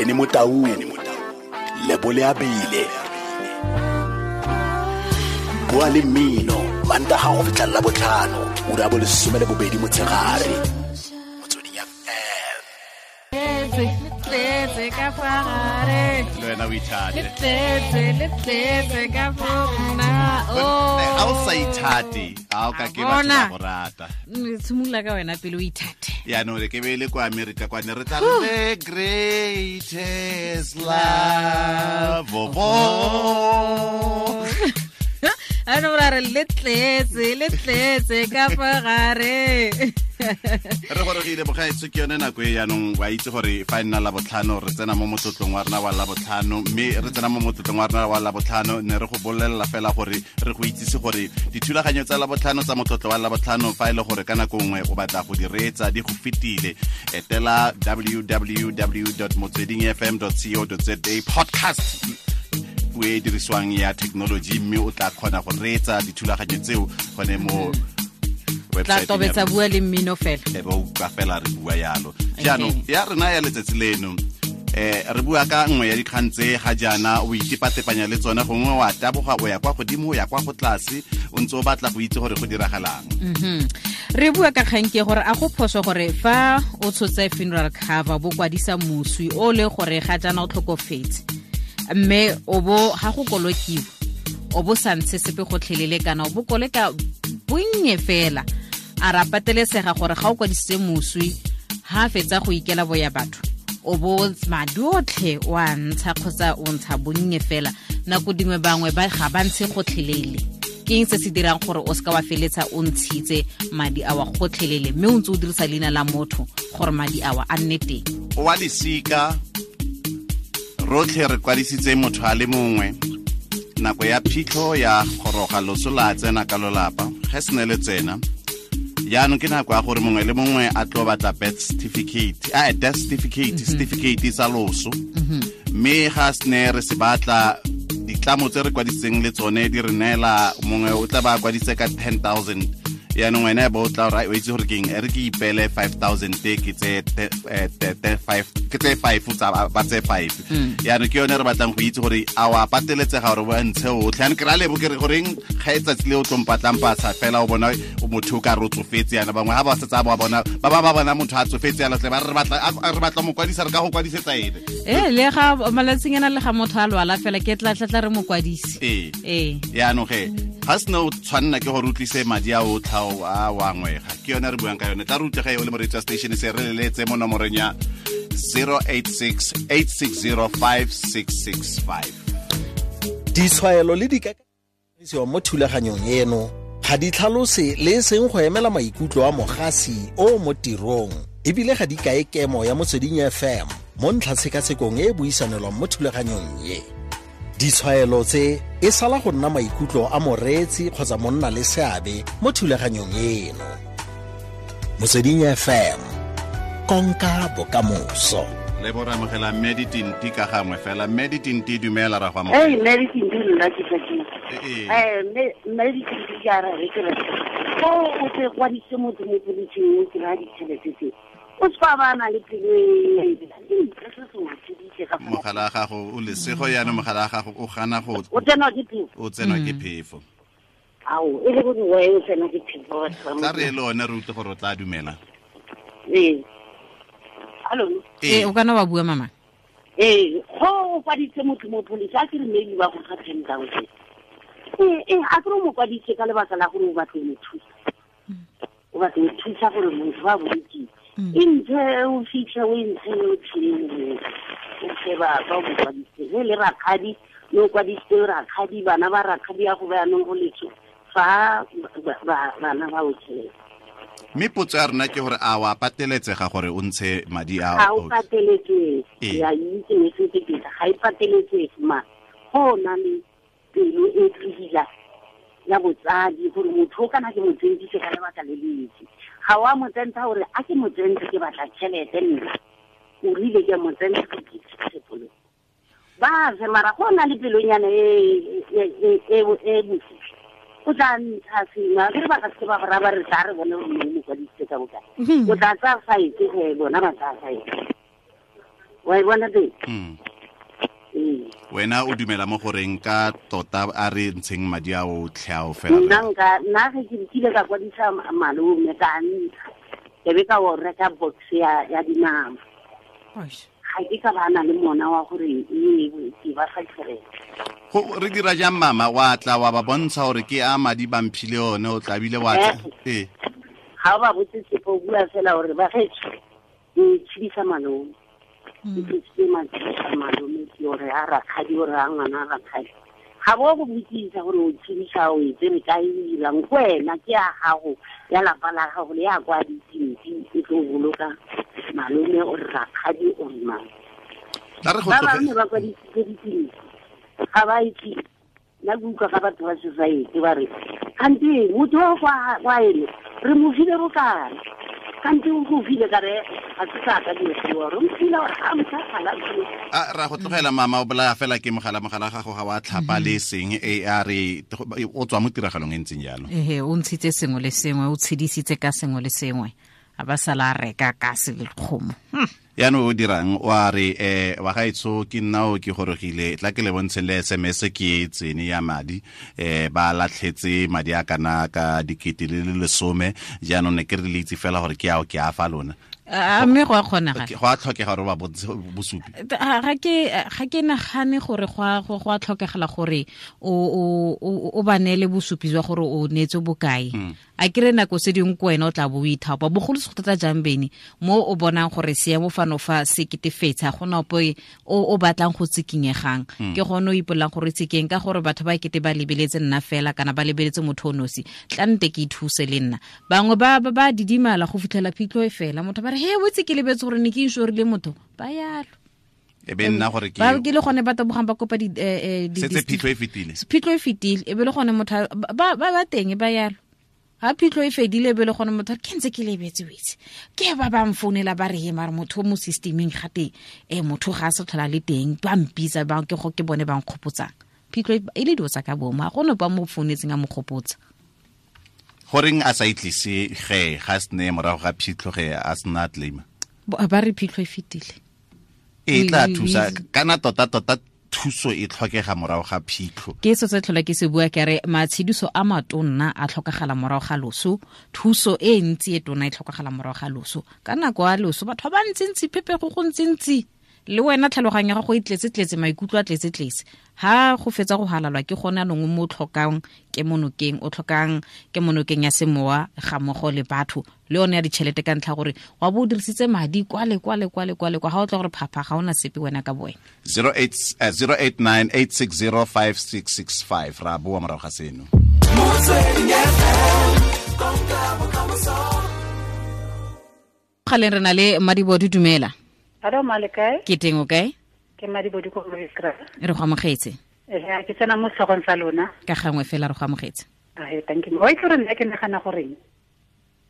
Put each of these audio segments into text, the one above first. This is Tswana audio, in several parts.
Benny Motaung, Lebole Abile. Bua le mmino, Mantaga go fitlha Labotlhano, ura ya bo 12 motshegare. Motsweding FM. Tletse, le tletse ka fa gare. Le wena o ithate. Le tletse, le tletse ka fo nna. Oh. Ga o sa ithate, ga o ka ke batho ba go rata. Tshimolola ka wena pele o ithate. Yaanong re ke be le kwa America kwane re tla re, "The greatest love of all." Ano ra re le tletse, le tletse ka fa gare. Re gorogile, bogaetso. Ke yone nako e yaanong wa itse gore fa e nna Labotlhano, re tsena mo motlotlong wa rena wa Labotlhano. Mme re tsena mo motlotlong wa rena wa Labotlhano, ne re go bolelela fela gore re go itsise gore dithulaganyo tsa Labotlhano tsa motlotlo wa Labotlhano, fa e le gore ka nako nngwe o batla go di reetsa di go fetile, etela www.motswedingfm.co.za, podcast, puo e dirisiwang ya technology, mme o tla kgona go reetsa dithulaganyo tseo gone mo Tla website. Tobetsa Bua le Mmino fela. E be utlwa fela re bua yalo. Jaanong ya rena ya letsatsi leno, re bua ka nngwe ya dikgang tse ga jaana o itepatepanya le tsone, gongwe wa taboga o ya kwa godimo, o ya kwa go tlase, o ntse o batla go itse gore go diragalang. Re bua ka kgang ke gore a go phoso gore fa o tshotse funeral cover, bo kwadisa moswi o le gore ga jaana o tlhokofetse, mme o bo ga go kolokiwa o bo sa ntshe sepe gotlhelele, kana o bo koleka bonnye fela, a ra patelesega gore ga o kwadisitse moswi, ha fetsa go ikela boya batho, o bo madi otlhe o a ntsha kgotsa o ntsha bonnye fela? Nako dingwe bangwe ba ga ba ntshe gotlhelele. Ke eng se se dirang gore o seka wa feletsa o ntshitse madi awa gotlhelele, mme o ntse o dirisa leina la motho gore madi awa a nne teng? Wa lesika rotlhe re kwadisitse motho a le mongwe. Nako ya phitlho ya goroga, loso la tsena ka lolapa. Ge se ne le tsena jaanong, ke nako ya gore mongwe le mongwe a tlo batla birth certificate, a death certificate, certificate sa loso. Mme ga se ne re se batla, ditlamo tse re kwadisitseng le tsone di re neela, mongwe o tla ba a kwadise ka 10 000. Yaanong wena bo o tla o itse gore keng, e re ke ipele 5000, ke tse ke tse five tsa ba tse five. Yaanong ke yone re batlang go itse gore a wa pateletsega gore o ntshe otlhe. Yaanong ke ra lebo ke re goreng ga e tsatsi le o tlompatlang pasa fela, o bona motho o ka re o tsofetse. Yana bangwe ga ba setsa ba bona ba ba ba bona motho a tsofetse yana tle ba re re batla mo kwadisa, re ka go kwadisetsa ene. Ee, le ga malatsing ana le ga motho a lwala fela, ke tla tla re mo kwadise. Ee. Ee. Yaanong ge ga sene o tshwanela ke gore o tlise madi a otlha a wa ngwega. Ke yone re buang ka yone. Tla re utlwe ge o le moreetsi wa station se, re leletse mo nomoreng ya 086 860 5665. Ditshwaelo le dikakanyo mo thulaganyong eno ga di tlhalose le e seng go emela maikutlo a mogasi o mo tirong, ebile ga di kae kemo ya Motsweding FM mo ntlhatshekasekong e e buisanelwang mo thulaganyong ye. Ditshwaelo tse e sala go nna maikutlo a moreetsi kgotsa monna le seabe mo thulaganyong eno. Motsweding FM, konka bokamoso. Le bo re amogela mme Ditinti ka gangwe fela. Mme Ditinti, dumela, ra go Ei, amogela. Mme Ditinti, nna ke tla ke Ee. Mme Ditinti, ke a re ke re go o tse kwadise motho mo polising, o kry-a ditšhelete tse, o se fa ba na le pelo e se ka fa. Mogala wa gago o lesego yaanong, mogala wa gago o gana go O tsenwa ke phefo. O tsenwa ke phefo. Ao, e le gore wa o tsenwa ke phefo, batho ba. Tla re le one re utlwe gore o tla dumela. Ee, hallo. Ee, o kana wa bua, mama. Ee, go o kwaditse motho mo police, a ke re maybe ba go fa 10 000. Ee, a ke re o mo kwaditse ka lebaka la gore o batla mo thusa, o batla go thusa gore motho ba bolokile, e ntshe o fitlhe o e ntshe yotlhe, o fe ba ba o mo kwaditse. Ge le rakgadi le o kwadisitse rakgadi, bana ba rakgadi ya go bayanong go letso fa bana ba o tšhelete. Mme potso ya rona ke gore a wa pateletsega gore o ntshe madi a Ga o pateletsege. Ee. Ya itse mesetse pele ga e pateletsege, ma go na le pelo e tlogila ya botsadi gore motho o kana ke mo tsentise ka lebaka le le ntsi. Ga wa mo tsentsha gore a ke mo tsentse ke batla tšhelete, nna o rile ke mo tsentsha ke ke ba fe. Mara go na le pelonyana e bosisi, o tla ntsha sengwe. A kere ba ka seke ba go raya ba re tla re bone gore mo kwadisitse ka bokae. O tla tsaya five ge bona ba tsaya five. Wa e bona teng? Wena o dumela mo goreng ka tota a re ntsheng madi a otlhe ao fela? Nna ge ke kile ka kwadisa malome ka ntsha, ke be ka o reka box ya dinama. Ga ke ka ba na le mona wa gore ke ba fa tšhelete. Go re dira jang mama, wa tla wa ba bontsha gore ke a madi ba mphile one, o tlabile wa tla. Ga o ba botse sepe, o bua fela gore ba getsho ke tshedisa malome. Ke tshedisitse malome ke ore a rakgadi, ore a ngwana a rakgadi. Ga bo go botsisa gore o tshedisa o e tsere kae, o dirang ko wena, ke ya gago ya lapa la gago le ya kwa ditsimpi e tlo boloka malome o re rakgadi o re mang. Ba bangwe ba kwadisitse ditsimpi ga ba itse. Nna ke utlwa ga batho ba society ba re kante motho o kwa ene re mo file bokana, kante o go file ka re ga se sa ka dilo tseo, re mo file gore ga motho a gala. A ra go tlogela mama, o bolaya fela ke mogala gago ga wa tlhapa le seng e a re o tswa mo tiragalong e ntseng jalo. Ehe, o ntshitse sengwe le sengwe, o tshedisitse ka sengwe le sengwe, a ba sala a reka ka se le kgomo. Yaanong o dirang, wa re wa gaetsho ke nna o ke gorogile, tla ke le bontshe le SMS ke e tsene ya madi, ba latlhetse madi a kana ka 10,000, jaanong ne ke re le itse fela gore ke ao ke a fa lona. A mme go a kgonagala? Go a tlhokega gore ba bontshe bosupi. Ga ke nagane gore go a tlhokegala gore o ba neele bosupi jwa gore o neetse bokae. A kere nako se dingwe ko wena o tla bo o ithapa, bogolo se go thata jang bene mo o bonang gore seemo fano fa se ketefetsa, go na ope o batlang go tsikinyegang. Ke gone o ipolelang gore tsikeng ka gore batho ba kete ba lebeletse nna fela kana ba lebeletse motho o nosi, tla nte ke ithuse le nna. Bangwe ba didimala go fitlhela phitlho e fela, motho ba re he o itse ke lebetse gore ne ke inšorile motho, ba yalo. E be nna gore ke ba ke le gone ba tabogang ba kopa di setse phitlho e fetile. Phitlho e fetile, e be le gone motho ba teng ba yalo. Ha phitlho e fedile be le gone motho ke ntse ke lebetse o itse. Ke ba ba mfounela ba re he mare motho mo systemeng gate motho ga a se tlhola le teng, ba mpitsa ba ke go ke bone ba nkgopotsang. Phitlho e le dilo tsa ka bomo, ga gone ba mo founetseng a mo gopotsa. Goreng a sa itlise ge ga se ne morago ga phitlho ge a sena claim? Ba re phitlho e fetile. E tla thusa kana tota thuso e tlhokega morago ga phitlho. Ke se se tlhola ke se bua ke re matshediso a matonna a tlhokagala morago ga loso, thuso e ntsi e tona e tlhokagala morago ga loso. Ka nako ya loso batho ba ntsintsi phepego go ntsintsi, le wena tlhaloganyo ya gago e tletse-tletse, maikutlo a tletse-tletse. Ha go fetsa go halalwa ke gone anong mo tlhokang kemonokeng, o tlhokang kemonokeng ya semowa ga mmogo le batho le yone ya ditšhelete, ka ntlha gore wa bo o dirisitse madi kwale kwale kwale kwale kwa, ga o tla gore phapha ga ona sepe wena ka boena. 0898605665 ra boa morago ga seno. Galeng re na le Madibodu, dumela. Hello, Malekae. Ke teng o kae? Ke Madibodu ko Moekra. Re go amogetse. Ke tsena mo setlhogong sa lona. Ka gangwe fela re go amogetse. Thank you. Wa itse gore nna ke nagana goreng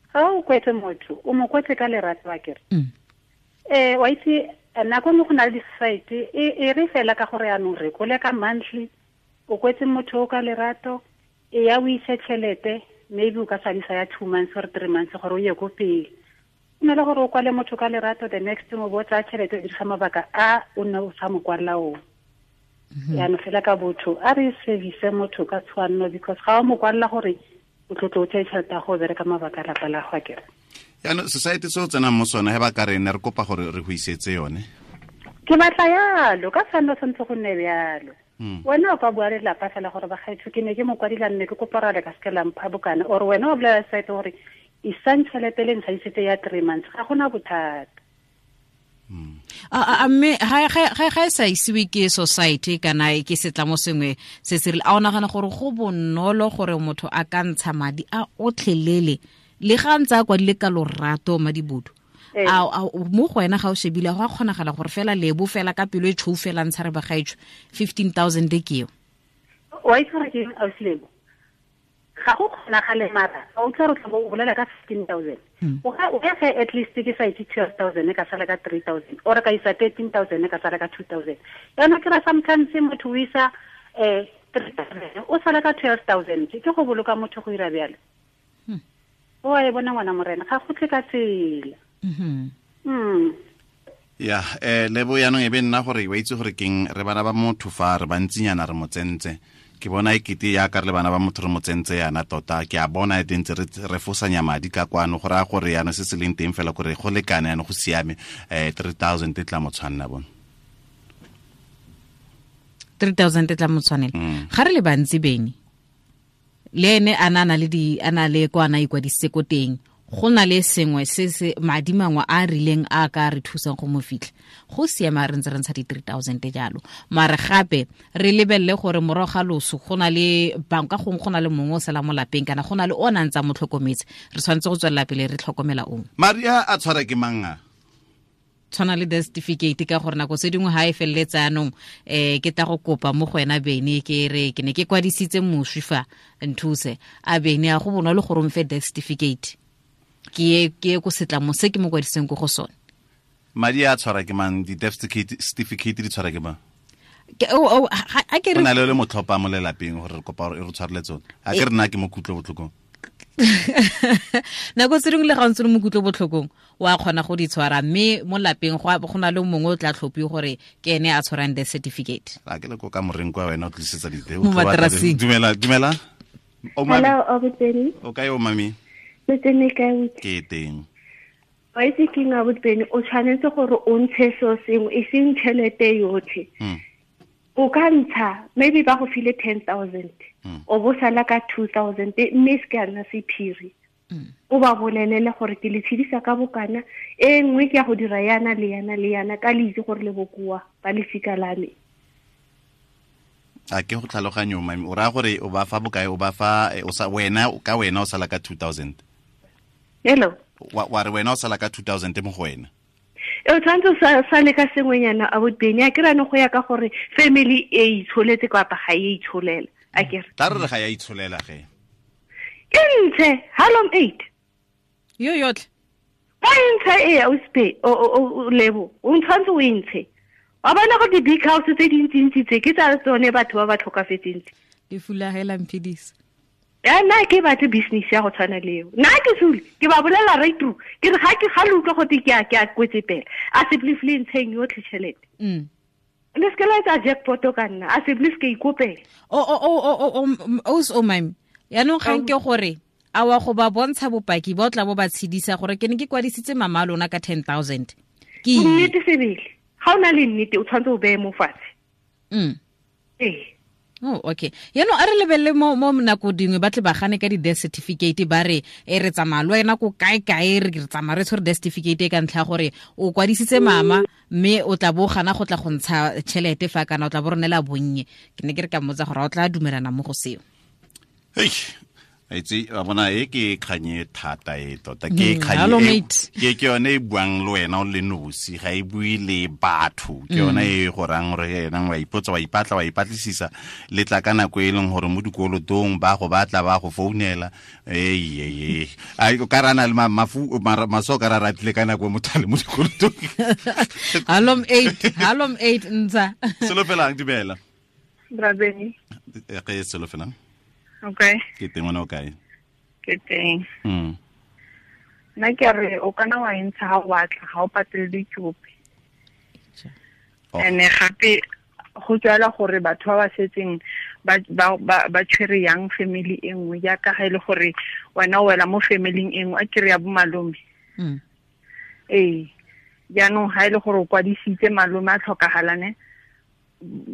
ga o kwetse motho, o mo kwetse ka lerato a kere. Wa itse nako nngwe go na le di-society e re fela ka gore yanong re kole ka monthly, o kwetse motho o ka lerato, e ya o ise tšhelete, maybe o ka sadisa ya 2 months or 3 months gore o ye ko pele. O na le gore o kwale motho ka lerato, the next thing o bo tsaya tšhelete o dirisa mabaka a o nne o sa mo kwalela ona. Yaanong fela ka botho a re service motho ka tshwanno, because ga o mo kwalela gore o tlotlo o tseye tšhelete ya go bereka mabaka a lapa la go akere. Yaanong society se o tsenang mo sone he ba ka re ne re kopa gore re go isetse yone. Ke batla yalo, ka tshwanno santse go nne bjalo. Wena o ka bua le lapa fela gore bagaetsho ke ne ke mo kwadila mme ke kopa gore ka seke la mpha bokana, or wena o bolela society gore isang tšhelete le ntsha ya 3 months, ga gona bothata. A mme ga e sa isiwe ke society kana ke setlamo sengwe se se rile, a o nagana gore go bonolo gore motho a ka ntsha madi a otlhelele le ga ntse a kwadile ka lorato Madibodu? A mo go wena ga o shebile go a kgonagala gore fela lebo fela ka pelo e tshweu fela ntsha re bagaetsho 15,000 ke eo? Wa itse gore ke eng, ausi Lebo? Ga go kgonagale mara o tla re tla bo o bolela ka 15,000. O ga o ge at least ke sa itse 12,000 ka sala ka 3,000 or ka isa 13,000 ka sala ka 2,000. Yana ke ra sometimes motho o isa 3,000 o sala ka 12,000, ke go boloka motho go ira bjalo. O a e bona ngwana morena, ga go tle ka tsela. Ya lebo yaanong e be nna gore wa itse gore keng re bana ba motho fa re bantsinyana re mo tsentse ke bona e kete ya ka re le bana ba motho re mo tsentse yana tota ke a bona e tentse re fosanya madi ka kwano go raya gore yana se se leng teng fela gore go lekane yana go siame 3000 e tla mo tshwanna bona 3000 e tla mo tshwanela ga re le bantsi beng le ene a na le di a na le kwa na ikwadisitse ko teng go na le sengwe se se madi mangwe a rileng a ka re thusang go mo fitlha go siama re ntse re ntsha di 3000 jalo mare gape re lebelele gore morago ga loso go na le banka gongwe go na le mongwe o sala mo lapeng kana go na le o nang tsa mo tlhokometse re tshwanetse go tswelela pele re tlhokomela ong madi a tshwara ke mang a tshwana le death certificate ka gore nako tse dingwe ha e feleletse anong ke tla go kopa mo go wena bene ke re ke ne ke kwadisitse moswi fa nthuse a bene a go bonolo gore o mfe death certificate ke ko setlamo se ke mo kwadiseng ko go sone madi a tshwara ke mang di death certificate di tshwara ke mang a ke re na le le motlhopa mo lelapeng gore re kopa gore e re tshwarele tsone a ke re nna ke mo kutlo botlhokong nako tse dingwe le ga o ntse le mo kutlo botlhokong wa kgona go di tshwara mme mo lapeng go na le mongwe o tla tlhophiwe gore ke ene a tshwarang death certificate a ke le ko ka moreng kwa wena o tlisetsa dite mo materaseng dumela dumela o mami hello Obuteni o kae o mami ke teng wa itse ke nga Botbeni o tshwanetse gore o ntshe so sengwe e seng tšhelete yotlhe o ka ntsha maybe ba go file 10,000 o bo sala ka 2,000 mme se ka nna sephiri o ba bolelele gore ke le tshedisa ka bokana e nngwe ke ya go dira yana le yana le yana ka le itse gore le bokoa ba lefika la me a ke go tlhaloganyo mami o raya gore o ba fa bokae o ba fa o sa wena ka wena o sala ka 2,000 hello wa re wena o sala ka 2,000 mo go wena e tshwanetse sa le ka sengwenyana a Botbeni a ke rano go ya ka gore family e itsholetse kapa ga e itsholela a ke re tla re ga ya itsholela ge ke ntshe halom 8 yo yotlhe ba ntshe e o spe o lebo o tshwanetse o ntshe wa bona go di big house tse dintsintsi tse ke tsa tsone batho ba ba tlhokafetseng tse di fulagela mphidisa ya nna ke batle business ya go tshwana le eo nna ke sule ke ba bolela right through ke re ga ke ga le utlwa gote ke a kwetse pele a se blifle ntsheng yotlhe tšhelete le se ke la etsa jackpot ka nna a se blif ke ikopela o mami yaanong ga nke gore a wa go ba bontsha bopaki ba o tla bo ba tshedisa gore ke ne ke kwadisitse mama a lona ka 10,000 ke nnete sebele ga o na le nnete o tshwanetse o beye mo fatshe ee Oh, okay. Yaanong a re lebelele mo nako dingwe ba tle ba gane ka di-death certificate ba re e re tsamaya le wena ko kae-kae re tsamaya re tshwere death certificate ka ntlha gore o kwadisitse mama mme o tla bo gana go tla go ntsha tšhelete fa kana o tla bo ronela bonnye ke ne ke re ka mmotsa gore o tla dumelana mo go seo hei aitse wa bona e ke kganye thata e tota ke kganye ke ke yone e buang le wena o le nosi ga e bue le batho ke yone e go rang gore ena wa ipotsa wa ipatla wa ipatlisisa le tla ka nako e leng gore mo dikolotong ba go batla ba go founela ee a ka rana le mafu maso ka ra ratile ka nako motho a le mo dikolotong halom 8 halom 8 ntsa solofelang dumela Brabeni ke solofelang okay ke teng wena o kae ke teng nna ke re o kana wa entsha ga o batla ga o patele dikopi ene gape go tswela gore batho ba ba setseng ba tshwere yang family e nngwe jaaka ga e le gore wena o wela mo familing e nngwe a kere ya bo malome ee jaanong ga e le gore o kwadisitse malome a tlhokagalane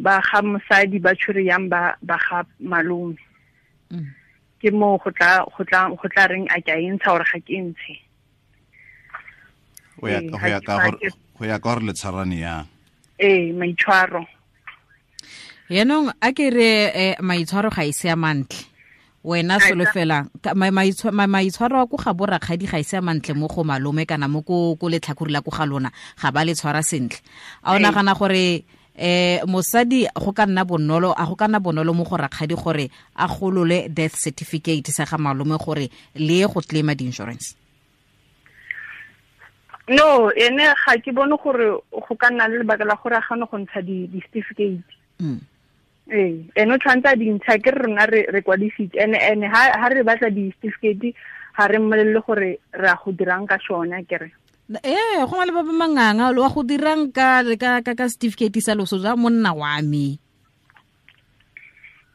ba ga mosadi ba tshwere yang ba ga malome ke mo go tla reng a ke a entsha gore ga ke ntshe go ya ka gore le tshwarane yang ee maitshwaro yaanong a ke re maitshwaro ga e se a mantle wena solofelang maitshwaro a ko ga borakgadi ga e se a mantle mo go malome kana mo ko letlhakore la ko ga lona ga ba le tshwara sentle a o nagana gore mosadi go ka nna bonolo a go ka nna bonolo mo go rakgadi gore a golole death certificate sa ga malome gore le go claima di-insurance no ene ga ke bone gore go ka nna le lebaka la gore a gane go ntsha di-certificate ee ene o tshwanetse a dintsha ke re rona re kwadisitse ene ha re batla di-certificate ga re mmolelele gore re a go dirang ka sone kere Go na le ba ba manganga lo wa go dirang ka ka certificate sa loso ja monna wa me.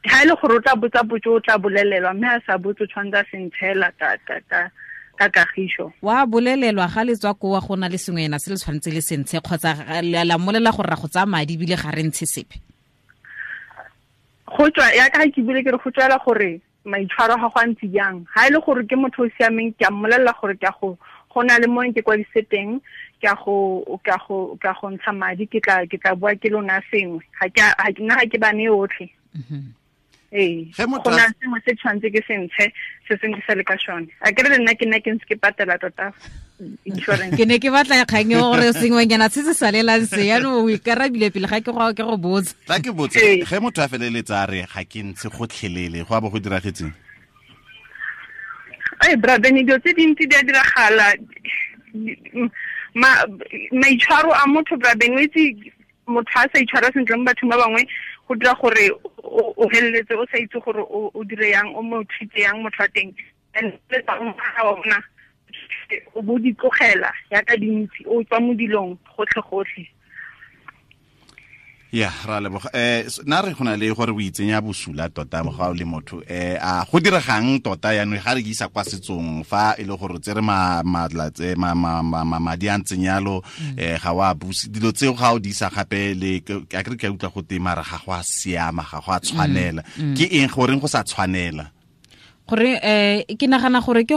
Ha ile gore o tla botsa botso o tla bolelelwa mme a sa botse tshwanetse a se ntshela ka kagiso. Wa bolelelwa ga le tswa ko wa go na le sengwe ena se le tshwanetse le sentshe kgotsa la mmolela gore ra go tsaya madi ebile ga re ntshe sepe. Go tswa ya ka ke bile ke re go tswela gore maitshwaro ga go a ntse jang. Ha ile gore ke motho o siameng ke a mmolelela gore ke a go na le mo ke kwadise teng ke a go ntsha madi ke tla bua ke lona sengwe ga ke nna ga ke bane yotlhe. Go na sengwe se tshwanetse ke se ntshe se sengwe ke sa le ka sone. A ke re le nna ke nna ke ntse ke patela tota insurance. Ke ne ke batla kgang e gore sengwenyana se se salelang se yaanong o ikarabile pele ga ke go botsa. Tla ke botse ge motho a feleletsa a re ga ke ntshe gotlhelele go a bo go diragetseng? Ai brother, dilo tse dintsi di a diragala. Maitshwaro a motho brother, o itse motho a sa itshwara sentle mo bathong ba bangwe go dira gore o feleletse o sa itse gore o dire yang o mo treat yang motho wa teng. And le tsa ona o bo di tlogela ya ka dintsi o tswa mo dilong gotlhe gotlhe. Ya ra leboga. Na re gona le gore o itsenya bosula tota ga o le motho a go diregang tota yaanong ga re isa kwa setsong fa e le gore tsere madi a ntseng yalo ga wa buse dilo tseo ga o di isa gape le a ke re ke utlwa go te mara ga go a siama ga go a tshwanela. Ke eng goreng go sa tshwanela? Gore ke nagana gore ke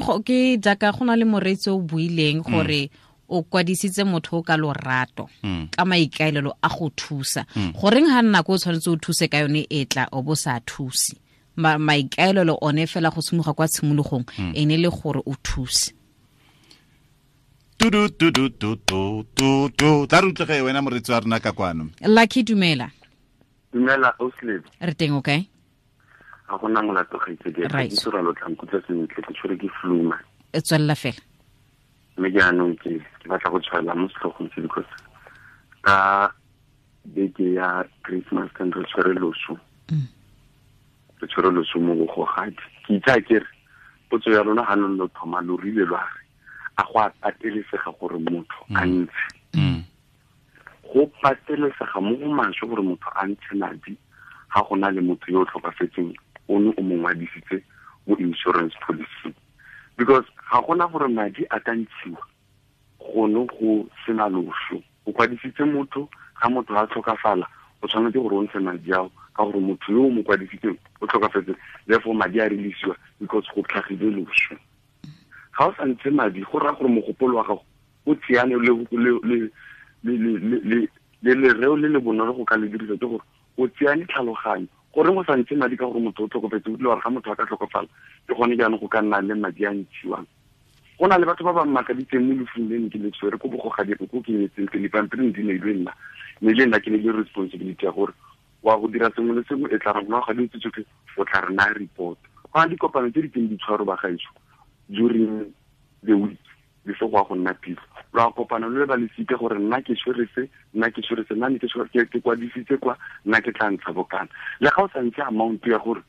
jaaka go na le moreetsi o buileng gore o kwadisitse motho o ka lorato ka maikaelelo a go thusa. Goreng ga nna ko o tshwanetse o thuse ka yone e tla o bo sa thuse. Maikaelelo one fela go tshimoga kwa tshimologong ene le gore o thuse. Tudu tudu tu tu tu tu tla re utlwege wena moreetsi wa rona ka kwano. Lucky, dumela. Dumela Ausley. Re teng o kae? Ga gona molato gaitsedi. Ke tsora lo tla nkutlwa sentle ke tshwere ke flu ma. E tswelela fela. Mme jaanong ke batla go tshwaela mo setlhogong se because ka beke ya Christmas kan re tshwere loso. Re tshwere loso mo bogogadi. Ke itse ke re potso ya lona ga lo thoma lo rile lwa re a go a patelesega gore motho a ntshe. Go patelesega mo go maswe gore motho a ntshe madi ga go na le motho yo o tlhokafetseng o ne o mo ngwadisitse mo insurance policy. Because ga gona gore madi a ka ntshiwa gone go sena loso. O kwadisitse motho, ga motho a tlhokafala o tshwanetse gore o ntshe madi ao ka gore motho yo o mo kwadisitseng o tlhokafetse, therefore madi a releasiwa because go tlhagile loso. Ga o sa ntshe madi go raya gore mogopolo wa gago o tseane le lereo le le bonolo go ka le dirisa ke gore o tseane tlhaloganyo. Gore go sa ntshe madi ka gore motho o tlhokofetse, o dile gore ga motho a ka tlhokofala ke gone jaanong go ka nna le madi a ntshiwang. Go na le batho ba ba mmakaditseng mo lefung le ne ke le tshwere ko bogogadi ko ke nyetseng pele pampiring di neilwe nna, mme le nna ke ne le responsibility ya gore wa go dira sengwe le sengwe e tla re morago ga dilo tse tsotlhe o tla re naya report. Go na le dikopano tse di teng di tshwaro ba gaetsho during the week before go ya go nna phitlho. Lwa kopana lo le ba lesike gore nna ke tshwere se, nna ke tshwere se, nna ne ke ke kwadisitse kwa, nna ke tla ntsha bokana. Le ga o sa ntshe amount ya gore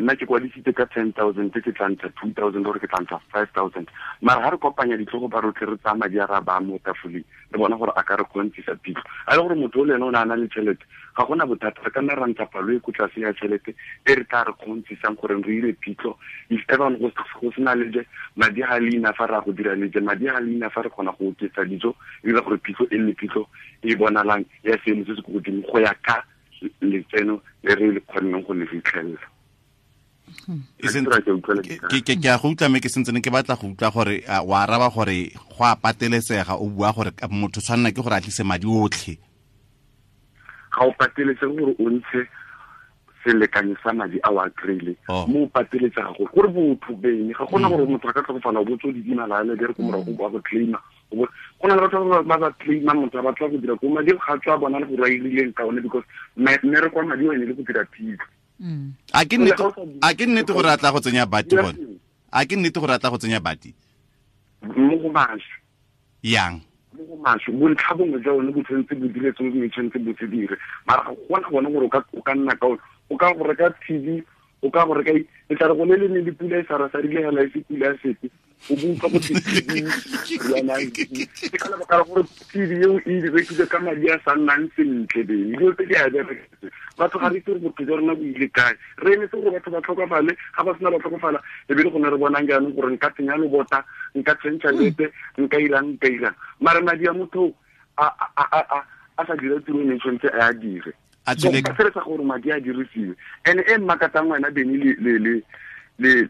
nna ke kwadisitse ka 10,000 ke tla ntsha 2,000 gore ke tla ntsha 5,000. Mara ga re kopanya ditlhogo ba rotlhe re tsaya madi a ra ba mo tafoleng re bona gore a ka re kgontisa phitlho. A le gore motho o le ene o ne a na le tšhelete ga gona bothata, re ka nna ra ntsha palo e ko tlase ya tšhelete e re tla re kgontsisang gore re ire phitlho. If ever go sena leje madi ga leina fa re a go dira leje, madi ga leina fa re kgona go oketsa dijo e dira gore phitlho e nne phitlho e bonalang ya seemo se se ko godimo go ya ka letseno le re le kgonneng go le fitlhelela. Ke a go utlwa mme ke sentse ke batla go utlwa gore wa araba gore go a patelesega o bua gore motho tshwanela ke gore a tlise madi otlhe. Ga o patelesege gore o ntshe selekanyo sa madi a o a kry-ile mo o pateletsega gore botho bene ga gona gore motho a ka tlhokofala o botse o didimala le re ko morago ba go claima. Go na le batho ba ba claima motho a batla go dira ko madi ga tswa bona le gore a irileng ka one because mmereko wa madi o ene le go dira phitlho. A ke nnete gore a tla go tsenya bati gone? A ke nnete gore a tla go tsenya bati? Mo go maswe. Yang? Mo go maswe. Bontlha bongwe jwa one bo tshwanetse bo dire sengwe tshwanetse bo se dire. Mara ga gona gone gore o ka nna ka o ka go reka TV O ka gore ka e tla re go le le ne le pula e sa rile hela e se pula ya sepe o buka go yana ke ka lebaka la gore TV eo e rekile ka madi a sa nnang sentle beng dilo tse di a bereka batho ga re itse gore botho jwa rona bo ile kae re emetse gore batho ba tlhokafale ga ba sena ba tlhokofala e be le gone re bonang jaanong gore nka tsenya lobota nka tšhentšha lepe nka irang mare madi a motho a sa dira tiro e ne tshwanetse a a dire a tswile ka feletsa gore madi a dirisiwe and e mmakatang wena Beni le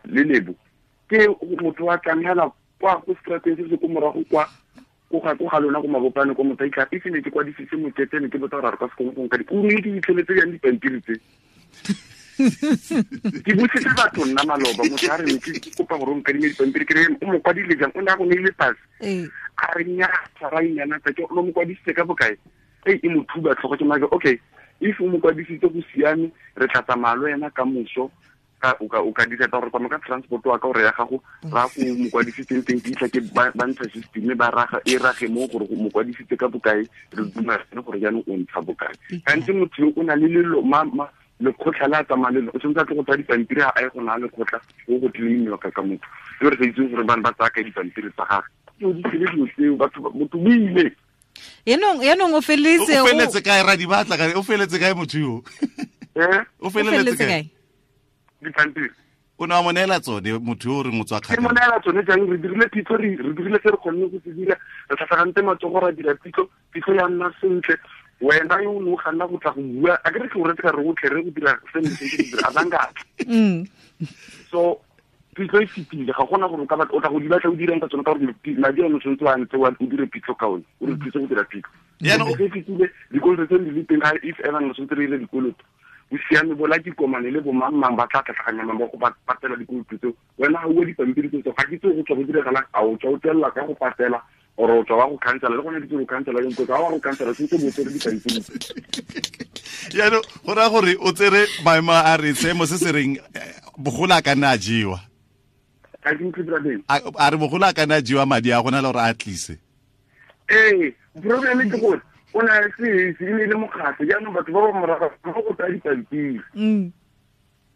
lebo ke motho wa tlang hela kwa go strateng se se ko morago kwa ko ga lona ko mabopane ko motho a itlha ne ke kwadisitse mokete ne ke botsa gore a re ka se kgone go nka di o ne ke fitlheletse jang dipampiri tse ke botsitse batho nna maloba motho a re ne ke kopa gore o nkadime dipampiri ke re o mo kwadile jang o ne a go neile pase a re nnyaa ra inyana tsa ke o mo kwadisitse ka bokae e mo thuba tlhogo ke maka okay if o mo kwadisitse go siame re tla tsamaya le wena ka moso o ka dira gore kwa ka transport wa ka gore ya gago ra go mo kwadisitseng teng ke itlha ke ba ntsha system ba raga e rage mo gore mo kwadisitse ka bokae re dumelane gore jaanong o ntsha bokae gantsi motho yo o na le lelo lekgotlha le a tsamaya le o tshwanetse a tle go tsaya dipampiri a ye go naya lekgotlha o go claimiwa ka motho e re sa itseng gore bane ba tsaya ka dipampiri tsa gagwe ke o di tsele dilo tseo batho motho o ile Yanong o feleletse o feleletse kae ra di batla ka o feleletse kae motho yo o feleletse kae dipampiri o ne wa mo neela tsone motho yo o reng o tswa kgakala ke mo neela tsone jang re dirile pitso re dirile se re kgonne go se dira re tlhatlhagantse matsogo ra dira pitso ya nna sentle wena yo o ne o kganna go tla go bua a ke re ke o retse ka re otlhe re go dira se ne se dira a bangatla so pitso e fetile ga gona gore o ka o tla go di batla o dirang ka tsone ka gore madi ano tshwanetse wa ntse o dire pitso ka one o re thuse go dira pitso e fetile dikoloto tse di le teng ga if ever ne tshwanetse re ile dikoloto o siame bola dikomane le bomangmang ba tla tlhatlhaganya mang ba go patela dikoloto tseo wena ga ua dipampiri tseo ga ke tse go tswa go diragalang a o tswa o tswelela ka go patela or o tswa wa go khansela le gone ke go khansela ke go wa go khansela se bo tsere dipampiri jaanong go raya gore o tsere maemo a re seemo se se reng bogolo a ka nna a jewa a re bogolo a ka nna a jewa madi a gona le gore a tlise ee problem ke gore o na le se e ne le mokgatlho jaanong batho ba ba morago ba go tsaya dipampiri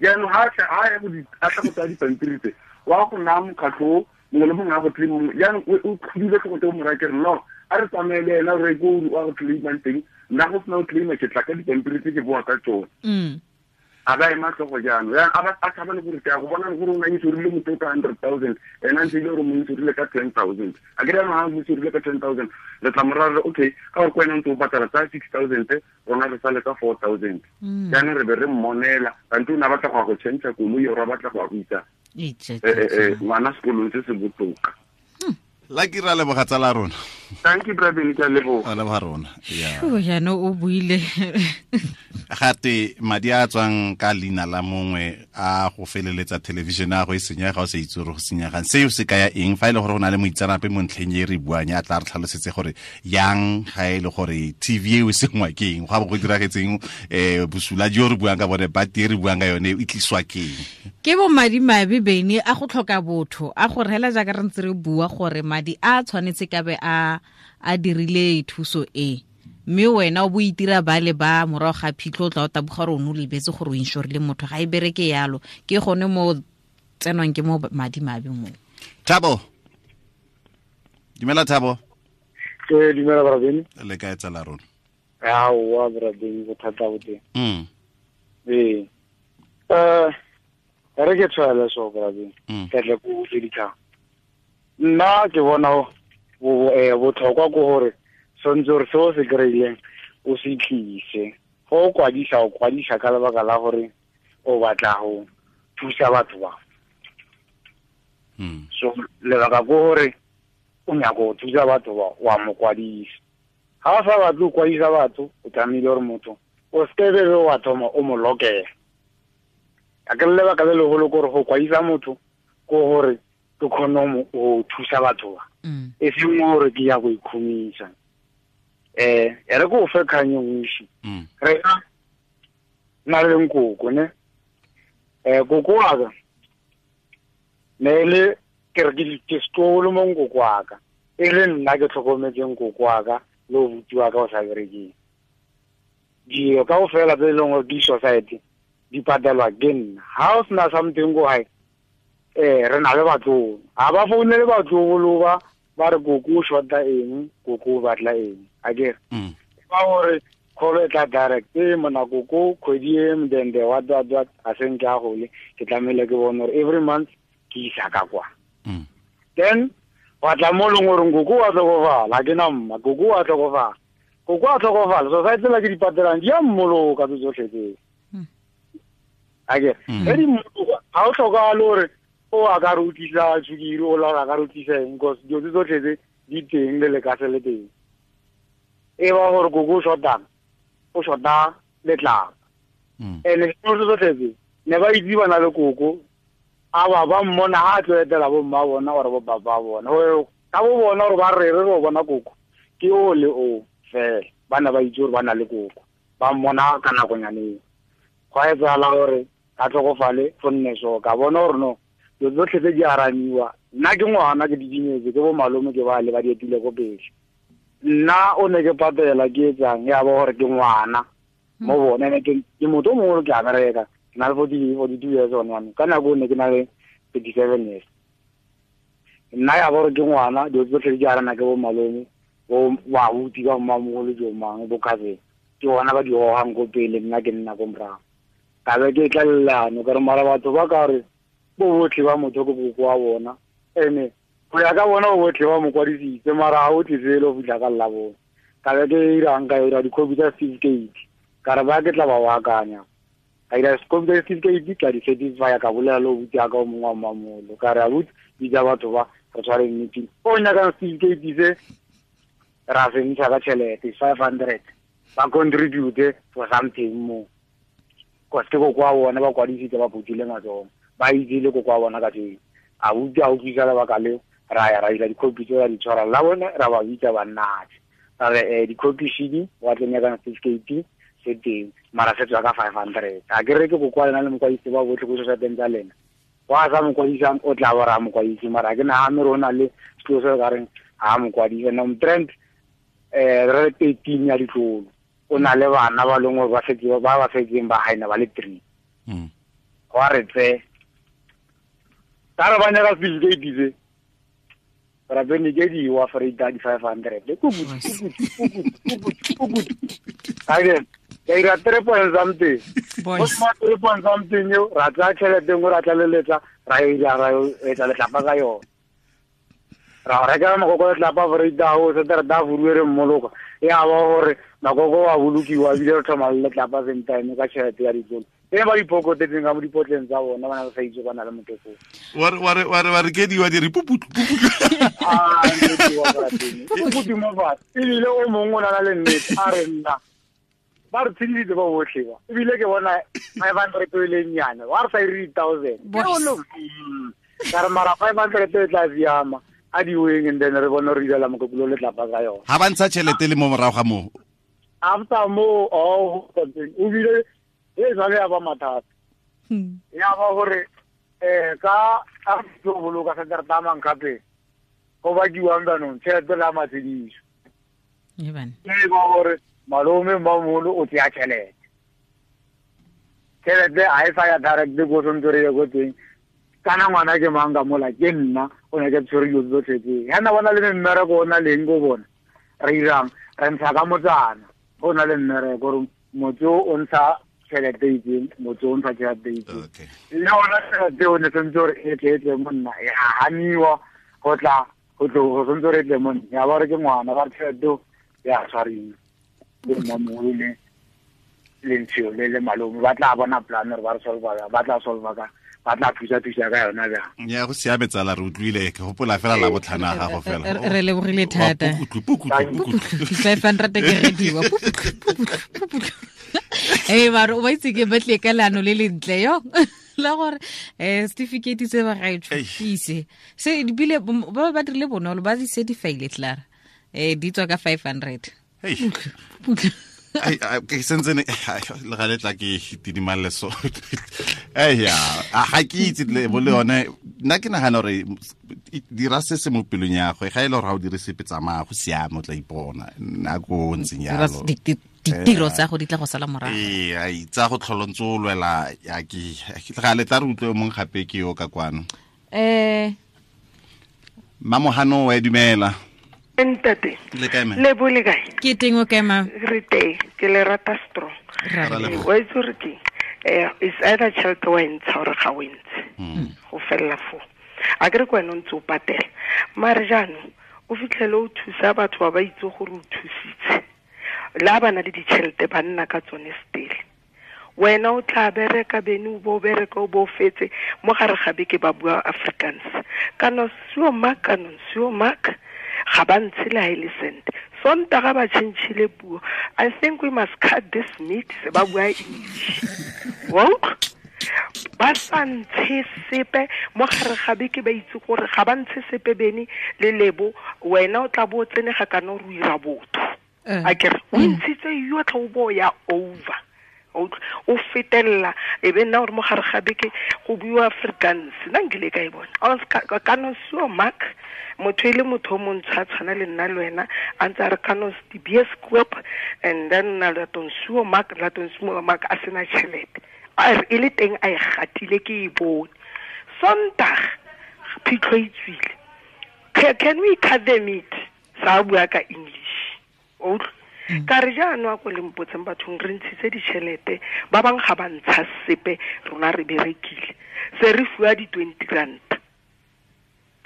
jaanong ga a tla go tsaya dipampiri tse wa go naya mokgatlho mongwe le mongwe a go claim jaanong o tlhodile tlhogo tse o moraya ke re no a re tsamaye le ena re ko wa go claimang teng nna go sena go claima ke tla ka dipampiri tse ke boa ka tsone a ba ema tlhogo jaanong a tshaba le gore ke a go bona gore o na insurile motho ka 100,000 ena ntse ile gore mo insurile ka 10,000 a ke re ha mo insurile ka 10,000 le tla moraya re okay ka gore ko wena ntse o patala tsa 6,000 rona re sale ka 4,000 jaanong re be re mmonela kante o ne a batla go ya go change koloi ore a batla go ya go isa ngwana sekolong se se botoka la ke ra leboga tsala rona thank you brother ke a leboga leboga rona yeah jaanong o buile gate madi a tswang ka leina la mongwe a go feleletsa television a go e senyega o sa itse gore go senyegang seo se kaya eng fa e le gore go na le moitseanape mo ntlheng e re buang ya tla re tlhalosetse gore yang ga e le gore TV eo e sengwa ke eng go a bo go diragetseng bosula jo re buang ka bone bati e re buang ka yone e tliswa ke eng ke bo madi mabe bene a go tlhoka botho a go rela jaaka re ntse re bua gore madi a tshwanetse ka be a dirile thuso e mme wena o bo itira ba le ba morago ga phitlho o tla o taboga gore o ne o lebetse gore o insurile motho ga e bereke yalo ke gone mo tsenwang ke mo madi mabe mo. Thabo, dumela Thabo. Ke dumela brabeni. Le kae tsala rona? Aowa brabeni go thata go teng. Ee. Re ke tshwaela so brabeni. Ka tla go tse dikgang. Nna ke bona botlhokwa ke gore tshwanetse gore se o se kry-ileng o se tlise. Go o kwadisa o kwadisa ka lebaka la gore o batla go thusa batho ba. So lebaka ke gore o nyaka go thusa batho ba wa mo kwadisa. Ga o sa batle go kwadisa batho o tlamehile gore motho o seke be wa thoma o mo lokela. A ke lebaka le legolo ke gore go kwadisa motho ke gore ke kgone go thusa batho ba. E seng gore ke ya go ikhumisa. E re ko fe kgang e boši. Re na le nkoko ne. Koko wa ka ne le ke re ke setlogolo mo nkoko wa ka. E le nna ke tlhokometseng nkoko wa ka le obuti wa ka o sa berekeng. Dilo kaofela tse e leng gore di society di di patelwa ke nna. Ha o sena something go hae, re na le batlolo. Ha ba founele batlolo ba re koko o shota eng, koko o batla eng. Akere ba gore call e tla direct, mona koko kgwedi e mdende what a seng ke a gole, ke tlamehile ke bone gore every month ke isa ka kwa. Then wa tla mo leng gore koko wa tlhokofala, ke na mma, koko wa tlhokofala. Koko wa tlhokofala, society la ke di patelang di a mmoloka tse tsotlhe tseo. Akere ge di mmoloka, ga o tlhokagale gore o a ka re utlwisa sukiri, o la a ka re utlwisa eng, because dilo tse tsotlhe tse di teng le lekase le teng. E ba gore koko o shotang, o shota letlapa. And dilo tse tsotlhe tse ne ba itse ba na le koko, a ba mmona ha a tlo etela bo mma bona or bo baba bona. Ka bo bona gore ba re re bona koko ke o le o fela, ba ne ba itse gore ba na le koko, ba mmona ka nakonyaneng. Go a etsagala gore ka tlhokofale go nne so, ka bona gore no dilo tsotlhe tse di aramiwa. Nna ke ngwana, ke didimetse, ke bo malome ke ba le ba di etile ko pele. Nna o ne ke patela ke etsang, ya ba gore ke ngwana mo bone, ene ke motho o mongwe ke a bereka, ke na le 42 years one one, ka nako o ne ke na le 37 years. Nna ya ba gore ke ngwana, dilo tsotlhe di arana ke bo malome, bo babuti ba mmamogolo jo mang, bo cousin, ke bona ba di gogang ko pele, nna ke nna ko morago. Ka be ke tlalelano ka re mara batho ba ka re bo botlhe ba motho ke koko wa bona, ene go ya ka bona bo botlhe ba mo kwadisitse, mara ga o tlise le go fitlha ka lla bona. Ka be ke irang, ka ira dikhopi tsa certificate, ka re ba ke tla ba baakanya. Ka ira dikhopi tsa certificate, ka di certify, ka bolela le obuti ya ka o mongwe wa mmamolo, ka re abuti bitsa batho ba re tshware meeting. O nyakang certificate se ra se ntsha ka tšhelete 500, ba contribute for something mo, cause ke koko wa bona ba kwadisitse, ba phuthile matsogo, ba itse le koko wa bona ka teng. A utlwa a utlwisa lebaka leo, ra ya ra ira dikhopi tse ra di tshwara la bone, ra ba bitsa ba nnatse, ra re dikhopi shedi wa tlo nyakang certificate se teng, mara se tswa ka 500. A ke re ke koko wa lena le mokwadisi ba botlhe ko societeng tsa lena, wa sa mokwadisang o tla ba ra mokwadisi, mara ke nagane gore o na le selo se ka reng ha mokwadisi. No trend re 13 ya ditlolo, o na le bana ba leng gore ba setse ba ba setseng ba haena ba le 3. Wa re tse ka re ba nyaka certificate se, ra bene ke di wa freita di 500. Ake ka ira 3 point something, go ma 3 point something yo ra tla tšhelete nngwe ra tlaleletsa, ra ira ra etsa letlapa ka yone, ra reka makoko letlapa freita o se re da furuwe re mmoloka, ya ba gore makoko wa bolokiwa ebile re tlhoma le letlapa same time ka tšhelete ya ditlolo. E ba dipokotetseng ka mo dipotleng tsa bona, ba na ba sa itse ba na le motho foo. Wa re ke diwa di re puputlu. Ah, puputlu mo fatshe. Ebile o mongwe o na le nnete, a re nna ba re tshedisitse ba botlhe ba, ebile ke bona 500 e le nnyane, wa re sa ire 1000. Ka re mara 500 e tla siama, a di weng, and then re bone re irela mokokolo letlapa ka yone. Ha ba ntsha tšhelete le mo morago ga moo. After moo, o bile e jwale ya ba mathata. Ya ba gore ka a tlo boloka se re tamang gape go bakiwang jaanong tšhelete la matshediso. E ba gore malome mmamolo o tseya tšhelete, tšhelete ga e sa ya direct ko tshwanetse re ye ko teng. Kana ngwana ke mang ka mola, ke nna o ne ke tshwere dilo tsotlhe tse. Ya na bona le mmereko o na leng ko bona, re irang re ntsha ka motsana o na le mmereko gore motse o ntsha tšhelete itseng, motse o ntsha tšhelete itseng. Le ona tšhelete o ne sentse gore e tle e tle mo nna, ya haniwa go tla go tlo go sentse gore e tle mo nna, ya ba re ke ngwana, ba re tšhelete ya tshwariwa ke mmamogolo le lentsho le le malome, ba tla bona plan gore ba re solva, ba tla solva ka ba tla thusa ka yona bjang. Ya go siame tsala, re utlwile, ke gopola fela la botlhana ga gago fela. Re lebogile thata. Pukutlu 500 ke rediwa. Pukutlu. Mara o ba itse ke batle ka leano le lentle yo. La gore certificate se ba gaetsho ise. Se dibile ba ba dirile bonolo ba di certify-ile tlara. Di tswa ka 500. Hey. Ai ke sentse ne le ga letla ke tidimalle so. Ya, ga ke itse le bo le yone, nna ke nagana gore dira se se mo pelong ya gagwe, ga e le gore ga o dire sepe tsamaya go siame, o tla ipona nako o ntseng yalo. Ditiro tsa go di tla go sala morago. Ee, ai tsa go tlholontse o lwela ya ke ga le tla re utlwe mong gape ke yo ka kwano. Mamohano wa dumela. Ntate. Le kae me? Le bo le kae? Ke teng o kae ma? Re teng, ke le rata strong. Wa itse gore ke is either tšhelete wa e ntsha gore ga o e ntshe. Go fella foo. A ke re ke wena o ntse o patela. Mare jaanong o fitlhele o thusa batho ba ba itse gore o thusitse. La ba na le ditšhelete ba nna ka tsone stele. Wena o tla bereka bene o bo bereka o bo fetse mo gare ga beke ba bua Afrikaans. Kana sio mak kana sio mak ga ba ntshe le ha e le cent. Sontaga ba tšhentšhile puo. I think we must cut this meat se ba bua English. Wa utlwa? Ba sa ntshe sepe mo gare ga beke ba itse gore ga ba ntshe sepe bene le lebo wena o tla bo o tsene ga kana o ira botho. A ke re o ntshitse yotlhe o bo ya over. O fetelela e be nna gore mo gare ga beke go buiwa Afrikaans nna nkile ka e bona kana sio mak motho e le motho o montsho a tshwana le nna le wena a ntse a re kana di bioskop and then na laton sio mak laton sio mak a sena tšhelete a re e le teng a e gatile ke e bone Sondag phitlho e tswile can we cut the meat sa bua ka English o ka re jaanong a ko le mpotseng bathong re ntshitse ditšhelete ba bangwe ga ba ntsha sepe rona re berekile se re fiwa di-20 rand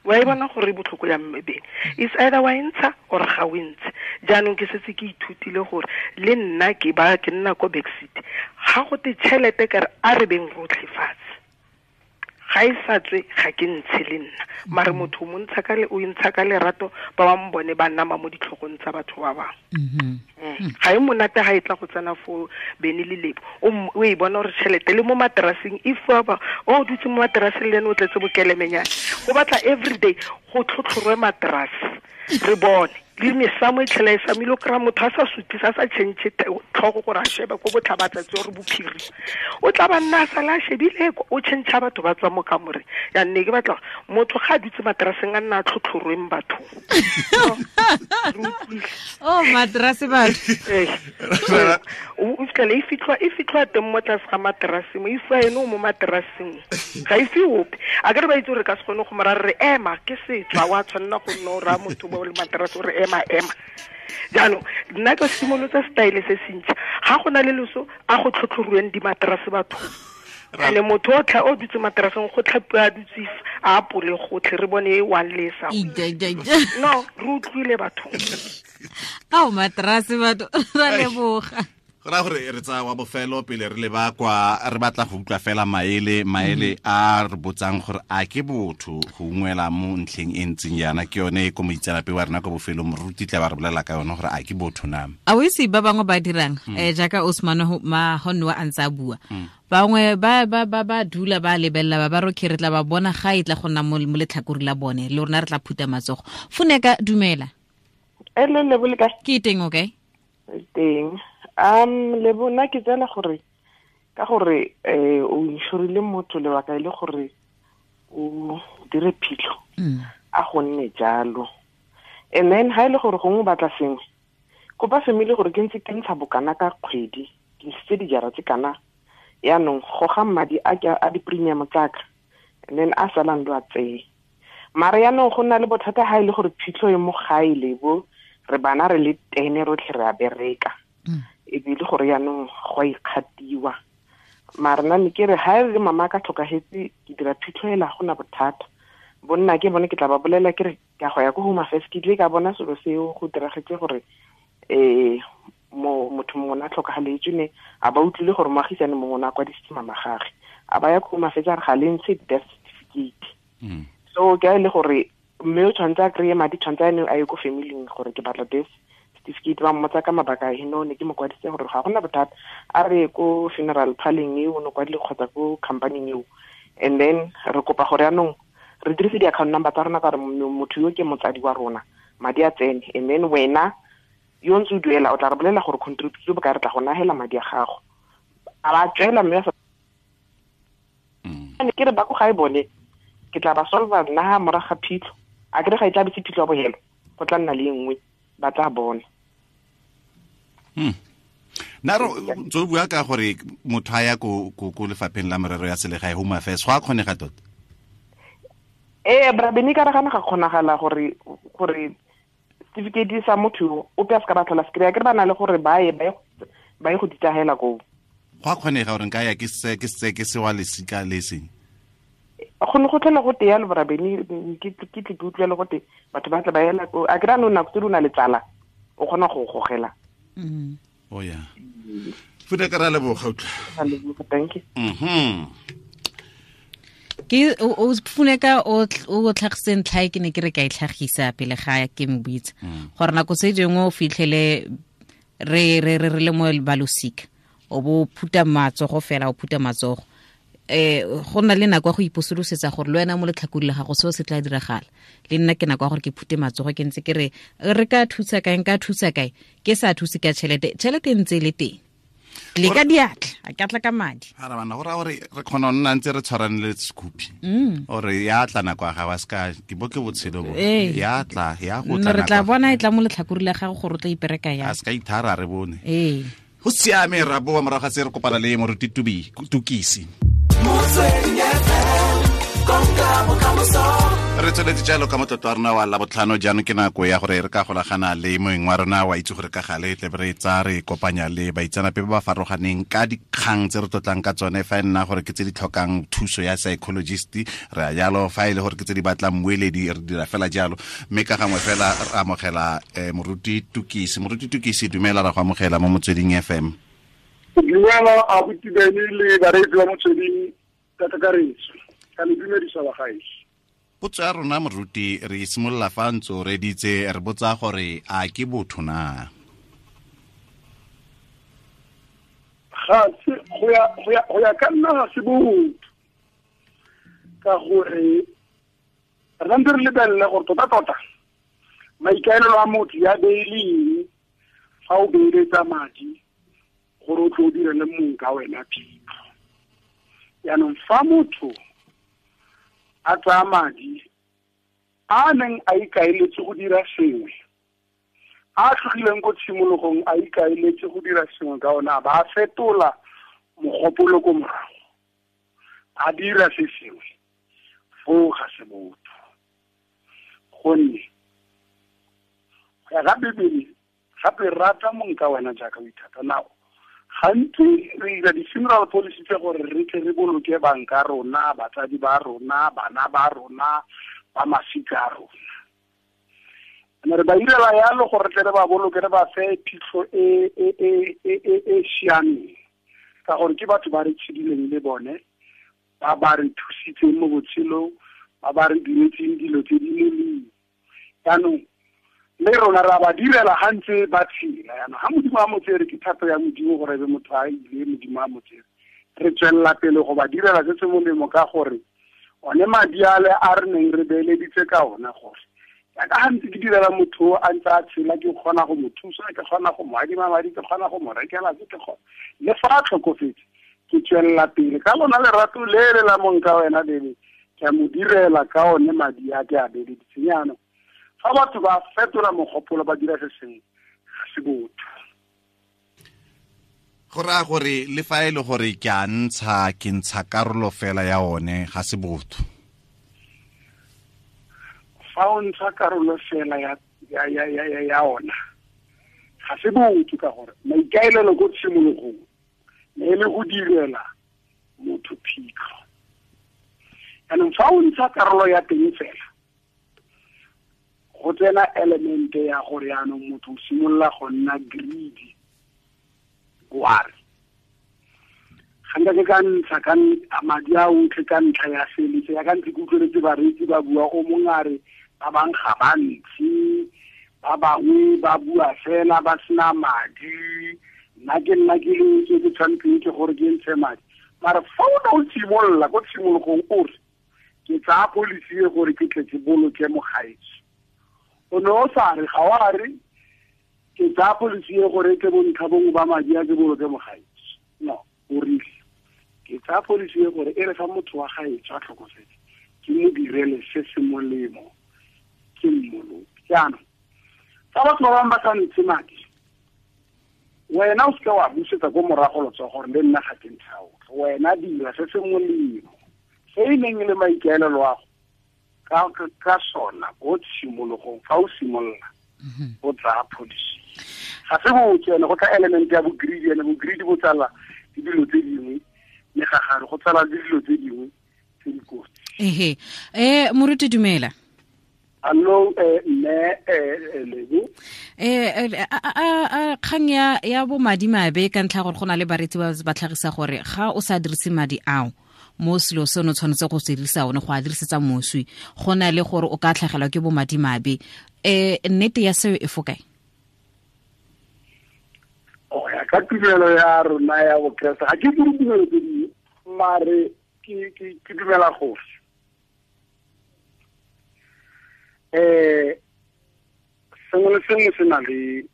wa e bona gore e botlhoko ya mmebeng is either wa e ntsha or ga o e ntshe jaanong ke setse ke ithutile gore le nna ke ba ke nna ko backseat ga go te tšhelete ka re a re beng rotlhe fatshe ga e sa tswe ga ke ntshe le nna mare motho o montsha ka le o ntsha ka lerato ba bangwe bone ba nama mo ditlhogong tsa batho ba bangwe. Ga e monate ga e tla go tsena fo bene le lebo o e bona gore tšhelete le mo materaseng if ba o dutse mo materaseng le ene o tletse bokelemenyana go batla everyday go tlhotlhorwe materase re bone le mesamo e tlhela e samile o kry-a motho a sa sutisa a sa change tlhogo gore a shebe ko botlhabatsatsi gore bophiri o tla ba nna a sala a shebile o change batho ba tswa mo kamoreng ya nne ke batla motho ga a dutse materaseng a nna a tlhotlhorweng bathong. Oh materase batho o fitlhele e fitlhwa teng mo tlase ga materase mo e fiwa ene o mo materaseng ga e fiwe ope a ke re ba itse gore ka se kgone go mora re ema ke setswa wa tshwanela go nna o raya motho ba o le materase o re ema jaanong nna ke simolotsa style se sentšha ga go na le leso a go tlhotlhorweng dimaterase bathong ene motho o tla o dutse materaseng go tlhapiwa a dutse a apole gotlhe re bone e one le sa no re utlwile bathong ao materase batho ra leboga go raya gore re tsaya wa bofelo pele re leba kwa re batla go utlwa fela maele a re botsang gore a ke botho go ungwela mo ntlheng e ntseng yana ke yone e ko moitseanape wa rena ko bofelong moruti tla ba re bolela ka yone gore a ke botho na a o itse ba bangwe ba dirang jaaka Osman Mahonwa a ntse a bua bangwe ba ba ba ba dula ba lebelela ba ba roke re tla ba bona ga e tla go nna mo letlhakore la bone le rona re tla phuta matsogo Funeka dumela le lebo le kae ke teng okay teng le bona ke tsela gore ka gore o inshorile motho lebaka e le gore o dire phitlho a go nne jalo and then ha ile gore gongwe batla sengwe kopa family gore ke ntse ke ntsha bokana ka kgwedi ke ntshitse dijara tse kana yaanong goga madi a a di-premium tsaka and then a salang lo a tseye mare yaanong go nna le bothata ha ile gore phitlho e mo gae lebo re bana re le tene rotlhe re a bereka e bile gore yaanong go a ikgatiwa mare nna ne ke re ha e le mama ka tlhokagetse ke dira phitlho ela gona bothata bonna ke bone ke tla ba bolela ke re ka go ya ko Home Affairs ke tle ka bona selo seo go diragetse gore mo motho mongwe a tlhokagaletswe ne a ba utlwile gore moagisane mongwe o ne a kwadisitse mama gage a ba ya ko Home Affairs a re ga le ntshe death certificate so ke a e le gore mme o tshwanetse a kry-e madi tshwanetse a ne a ye ko familing gore ke batla death certificate ba mmotsa ka mabaka a heno ne ke mo kwadisitse gore ga gona bothata a re ko funeral parleng eo o ne kwadile kgotsa ko companyng eo and then re kopa gore yaanong re dirise di-account number tsa rona ka gore motho yo ke motsadi wa rona madi a tsene and then wena yo ntse o duela o tla re bolela gore contribute bokae re tla go nagela madi a gago a ba tswela mme ne ke re ba ko gae bone ke tla ba solva nna ha morago ga phitlho a kere ga e tla be se phitlho ya bogelo go tla nna le e nngwe ba tla bona. Nna re ntse o bua ka gore motho a ya ko lefapheng la merero ya selegae, Home Affairs, go a kgonega tota? Ee, Brabeni, ka ragana ga kgonagala gore certificate sa motho ope a se ka ba tlhola se kry-a, ke re ba na le gore ba ye go ditahela koo. Go a kgonega gore nka ya ke se wa lesika le seng? Go ne go tlhola go te yalo, Brabeni, ke tle ke utlwele go te batho ba tla ba ela ko. A ke ra no nako tse di o na le tsala, o kgona go gogela. Oh yeah. Fude ka ra leboga utlwa. Thank you. Ke o Funeka o tlhagiseng ntlha e ke ne ke re ka e tlhagisa pele ga ke mbitsa. Gore nako tse dingwe o fitlhele re re re le mo balosika, o bo phuta matsogo fela, o phuta matsogo. Go nna le nako ya go iposolosetsa gore le wena mo letlhakodi la gago seo se tla diragala. Le nna ke nako ya gore ke phute matsogo, ke ntse ke re re ka thusa kae, nka thusa kae, ke sa thuse ka tšhelete, tšhelete e ntse e le teng. Le ka diatla, a ka tla ka madi. Ara bana, go raya gore re kgona go nna ntse re tshwarane le sekhupi. Ore ya tla nako ya gago, a seka ke bo ke botshelo bo. Ya tla, ya go tla. Re tla bona e tla mo letlhakori la gago gore o tla ipereka yang. A seka ithara re bone. Go siame, ra boa morago ga se re kopana le moruti Tukisi. Re tsweletse jalo ka motlotlo wa rona wa Labotlhano. Jaanong ke nako ya gore re ka golagana le moeng wa rona wa itse gore ka gale tle re tsa re kopanya le baitsanape ba ba farologaneng ka dikgang tse re tlotlang ka tsone. Fa e nna gore ke tse di tlhokang thuso ya psychologist, re a jalo. Fa e le gore ke tse di batlang mmueledi, re dira fela jalo. Mme ka gangwe fela re amogela moruti Tukisi. Moruti Tukisi, dumela, ra go amogela mo Motsweding FM. Dumela abuti Beni le bareetsi ba Motsweding ka kakaretso. Ka le dumedisa bagaetsho. Potso ya rona moruti, re simolola fa ntse o reditse, re botsa gore a ke botho na? Ga se, go ya ka nna ga se botho, ka gore re ntse re lebelele gore tota-tota maikaelelo a motho ya beileng fa o beeletsa madi gore o tlo o direle mong ka wena phitlho. Jaanong fa motho a tsaya madi a neng a ikaeletse go dira sengwe, a tlogileng ko tshimologong a ikaeletse go dira sengwe ka ona, a ba a fetola mogopolo ko morago, a dira se sengwe, foo ga se botho. Gonne go ya ka Bibele, gape rata mong ka wena jaaka o ithata. Nao gantsi re dira di-funeral policy tse gore re tle re boloke banka rona, batsadi ba rona, bana ba rona, ba masika a rona. Ene re ba irela yalo gore re tle re ba boloke, re ba fe phitlho e siameng, ka gore ke batho ba re tshedileng le bone, ba ba re thusitseng mo botshelong, ba ba re diretseng dilo tse di molemo. Jaanong le rona ra ba direla ga ntse ba tshela. Jaanong ga Modimo a mo tsere, ke thato ya Modimo gore be motho a ile, Modimo a mo tsere, re tswelela pele go ba direla se se molemo, ka gore one madi ale a re neng re beeleditse ka ona, gore jaaka ga ntse ke direla motho a ntse a tshela, ke kgona go mo thusa, ke kgona go mo adima madi, ke kgona go mo rekela se, ke kgona le fa a tlhokofetse, ke tswelela pele ka lona lerato le le la mong ka wena lele, ke a mo direla ka one madi a ke a beeleditseng. Jaanong fa batho ba fetola mogopolo ba dira se sengwe, ga se botho. Go raya gore le fa e le gore ke a ntsha, ke ntsha karolo fela ya one, ga se botho. Fa o ntsha karolo fela ya ona, ga se botho, ka gore maikaelelo ko tshimologong ne e le go direla motho phitlho. Jaanong fa o ntsha karolo ya teng fela, go tsena elemente ya gore jaanong motho o simolola go nna greedy. Ware ga nka ke ka ntsha ka madi a otlhe ka ntlha ya seletse, ya ka ntse ke utlweletse bareetsi ba bua, o mongwe a re ba bangwe ga ba ntshe, ba bangwe ba bua fela ba sena madi, nna ke nna ke le ke ke tshwanetseng ke gore ke ntshe madi. Mara fa o ne o simolola ko tshimologong o re ke tsaya policy e gore ke tle ke boloke mogaetsho, o ne o sa re, ga o a re ke tsaya policy e gore ke bontlha bongwe ba madi a ke boloke mogaetsho. No, o rile ke tsaya policy e gore e re fa motho wa gaetsho a tlhokofetse, ke mo direle se se molemo, ke mmoloke. Jaanong fa batho ba bangwe ba sa ntshe madi, Wena o seka wa busetsa ko morago letsogo gore le nna ga ke ntsha otlhe. Wena dira se se molemo se e neng e le maikaelelo a go ka sona ko tshimologong fa o simolola o tsaya policy. Ga se botse ene go tla element ya bo-greedy, ene bo-greedy bo tsala le dilo tse dingwe, megagare go tsala le dilo tse dingwe tse di kotsi. Ehe, moruti dumela. Allo, mme Lebo. Kgang ya bo madimabe ka ntlha gore go na le baretsi ba tlhagisa gore ga o sa dirise madi ao mo selo seno tshwanetse go se dirisa one go a dirisetsa moswi, go na le gore o ka tlhagelwa ke bo madimabe. Nnete ya seo e fo kae? O ya ka tumelo ya rona ya Bokreste, ga ke dire tumelo tse dingwe, mare ke dumela gore sengwe le sengwe se na le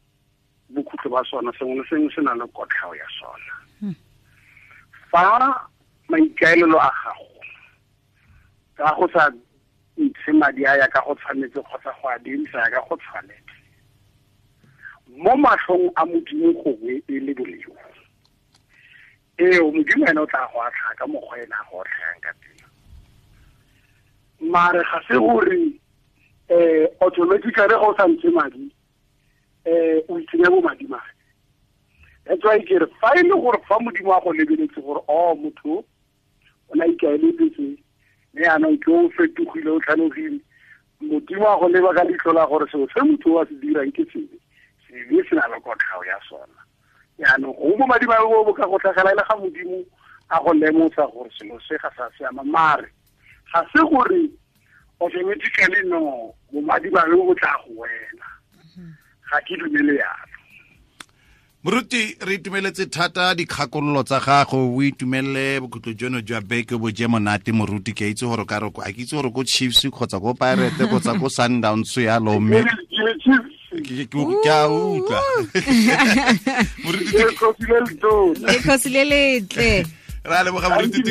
bokhutlo ba sona, sengwe le sengwe se na le kotlhao ya sona. Fa maikaelelo a gago ka go sa ntshe madi a ya ka go tshwanetse kgotsa go a dirisa ya ka go tshwanetse, mo matlhong a Modimo gongwe e le boleo, eo Modimo ene o tla go atlha ka mokgwa ene a go otlhayang ka teng. Mare ga se gore automatically ga o sa ntshe madi o itsenya bo madimabe. That's why ke re fa e le gore fa Modimo a go lebeletse gore o motho o na ikaeletse mme yaanong ke o fetogile o tlhalogile, Modimo a go leba ka leitlho la gore selo se motho a se dirang ke sebe, sebe se na le kotlhao ya sona. Yaanong go bo madimabe bo bo ka go tlhagela e le ga Modimo a go lemosa gore selo se ga sa siama. Mare ga se gore automatically no bomadimabe bo tla go wela, ga ke dumele yalo. Moruti, re itumeletse thata dikgakololo tsa gago, o itumelele bokhutlo jono jwa beke bo je monate moruti. Ke itse gore ka re a ke itse gore ko Chiefs kgotsa ko Pirates kgotsa ko Sundowns yalo, mme ke a utlwa. Moruti, le khosi le letle. Ra leboga moruti.